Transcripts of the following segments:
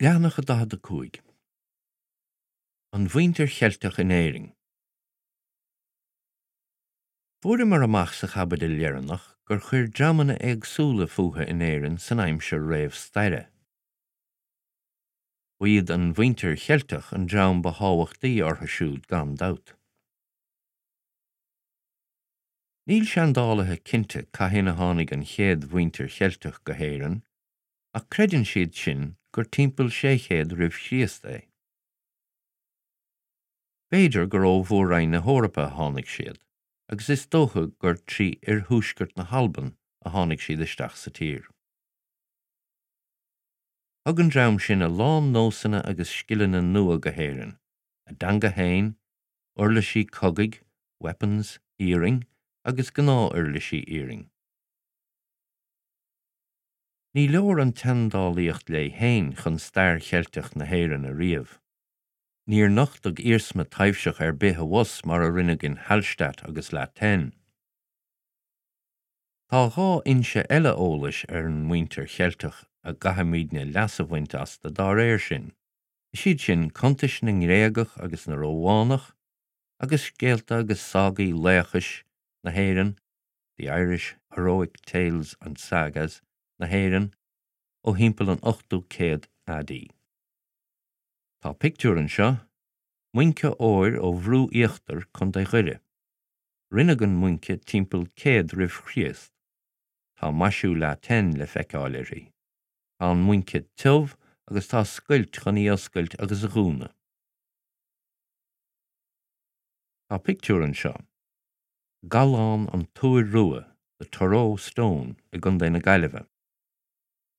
Leathanach 45. An Mhuintir Cheilteach in Éirinn. Fuaireamar amach sa chaibidil dheireanach gur chuir dreamanna éagsúla fúthu in Éirinn san aimsir réamhstaire. Ba iad an mhuintir Cheilteach an dream ba thábhachtaí orthu siúd gan dabht. Níl seandálaithe cinnte cathain a tháinig an chéad mhuintir Cheilteach go hÉirinn, ach creideann siad sin gur timpeall 600 roimh Chríost é. B'fhéidir gur ó mhór-roinn na hEorpa a tháinig siad, agus is dócha gur trí oirthuaisceart na hAlban a tháinig siad isteach sa tír. Thug an dream sin a lán nósanna agus scileanna nua go hÉirinn, a dteanga féin, uirlisí cogaidh, weapons, iarainn agus gnáth-uirlisí iarainn. Ní leor an tseandálaíocht léi féin chun stair Cheilteach na hÉireann a ríomh. Níor nochtadh iarsma taibhseach ar bith abhus mar a rinneadh in Hallstatt agus La Tène. Tá dhá fhoinse eile eolais ar an muintir Cheilteach a gcaithfimidne leas a bhaint astu dá réir sin, is iad sin cuntais na nGréagach agus na Rómhánach agus scéalta agus ságaí laochais na hÉireann The Irish Heroic Tales and Sagas na hÉireann ó thimpeall an 8ú céad AD. Tá pictiúr anseo, muince óir ó Bhrú Íochtair, Co. Dhoire. Rinneadh an muince timpeall 100 roimh Chríost. Tá maisiú La Tène le feiceáil uirthi. Tá an muince tiubh agus tá scoilt chun í oscailt agus a dhúnadh. Tá pictiúr anseo. Gallán an Túir Rua, The Turoe Stone, i gContae na Gaillimhe.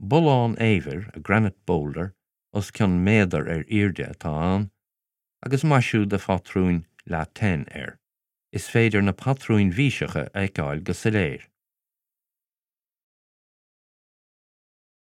Bullán eibhir, a granite boulder, os cionn méadar ar airde atá ann, agus maisiú de phatrúin La Tène air. Is féidir na patrúin bhíseacha a fheiceáil go soiléir.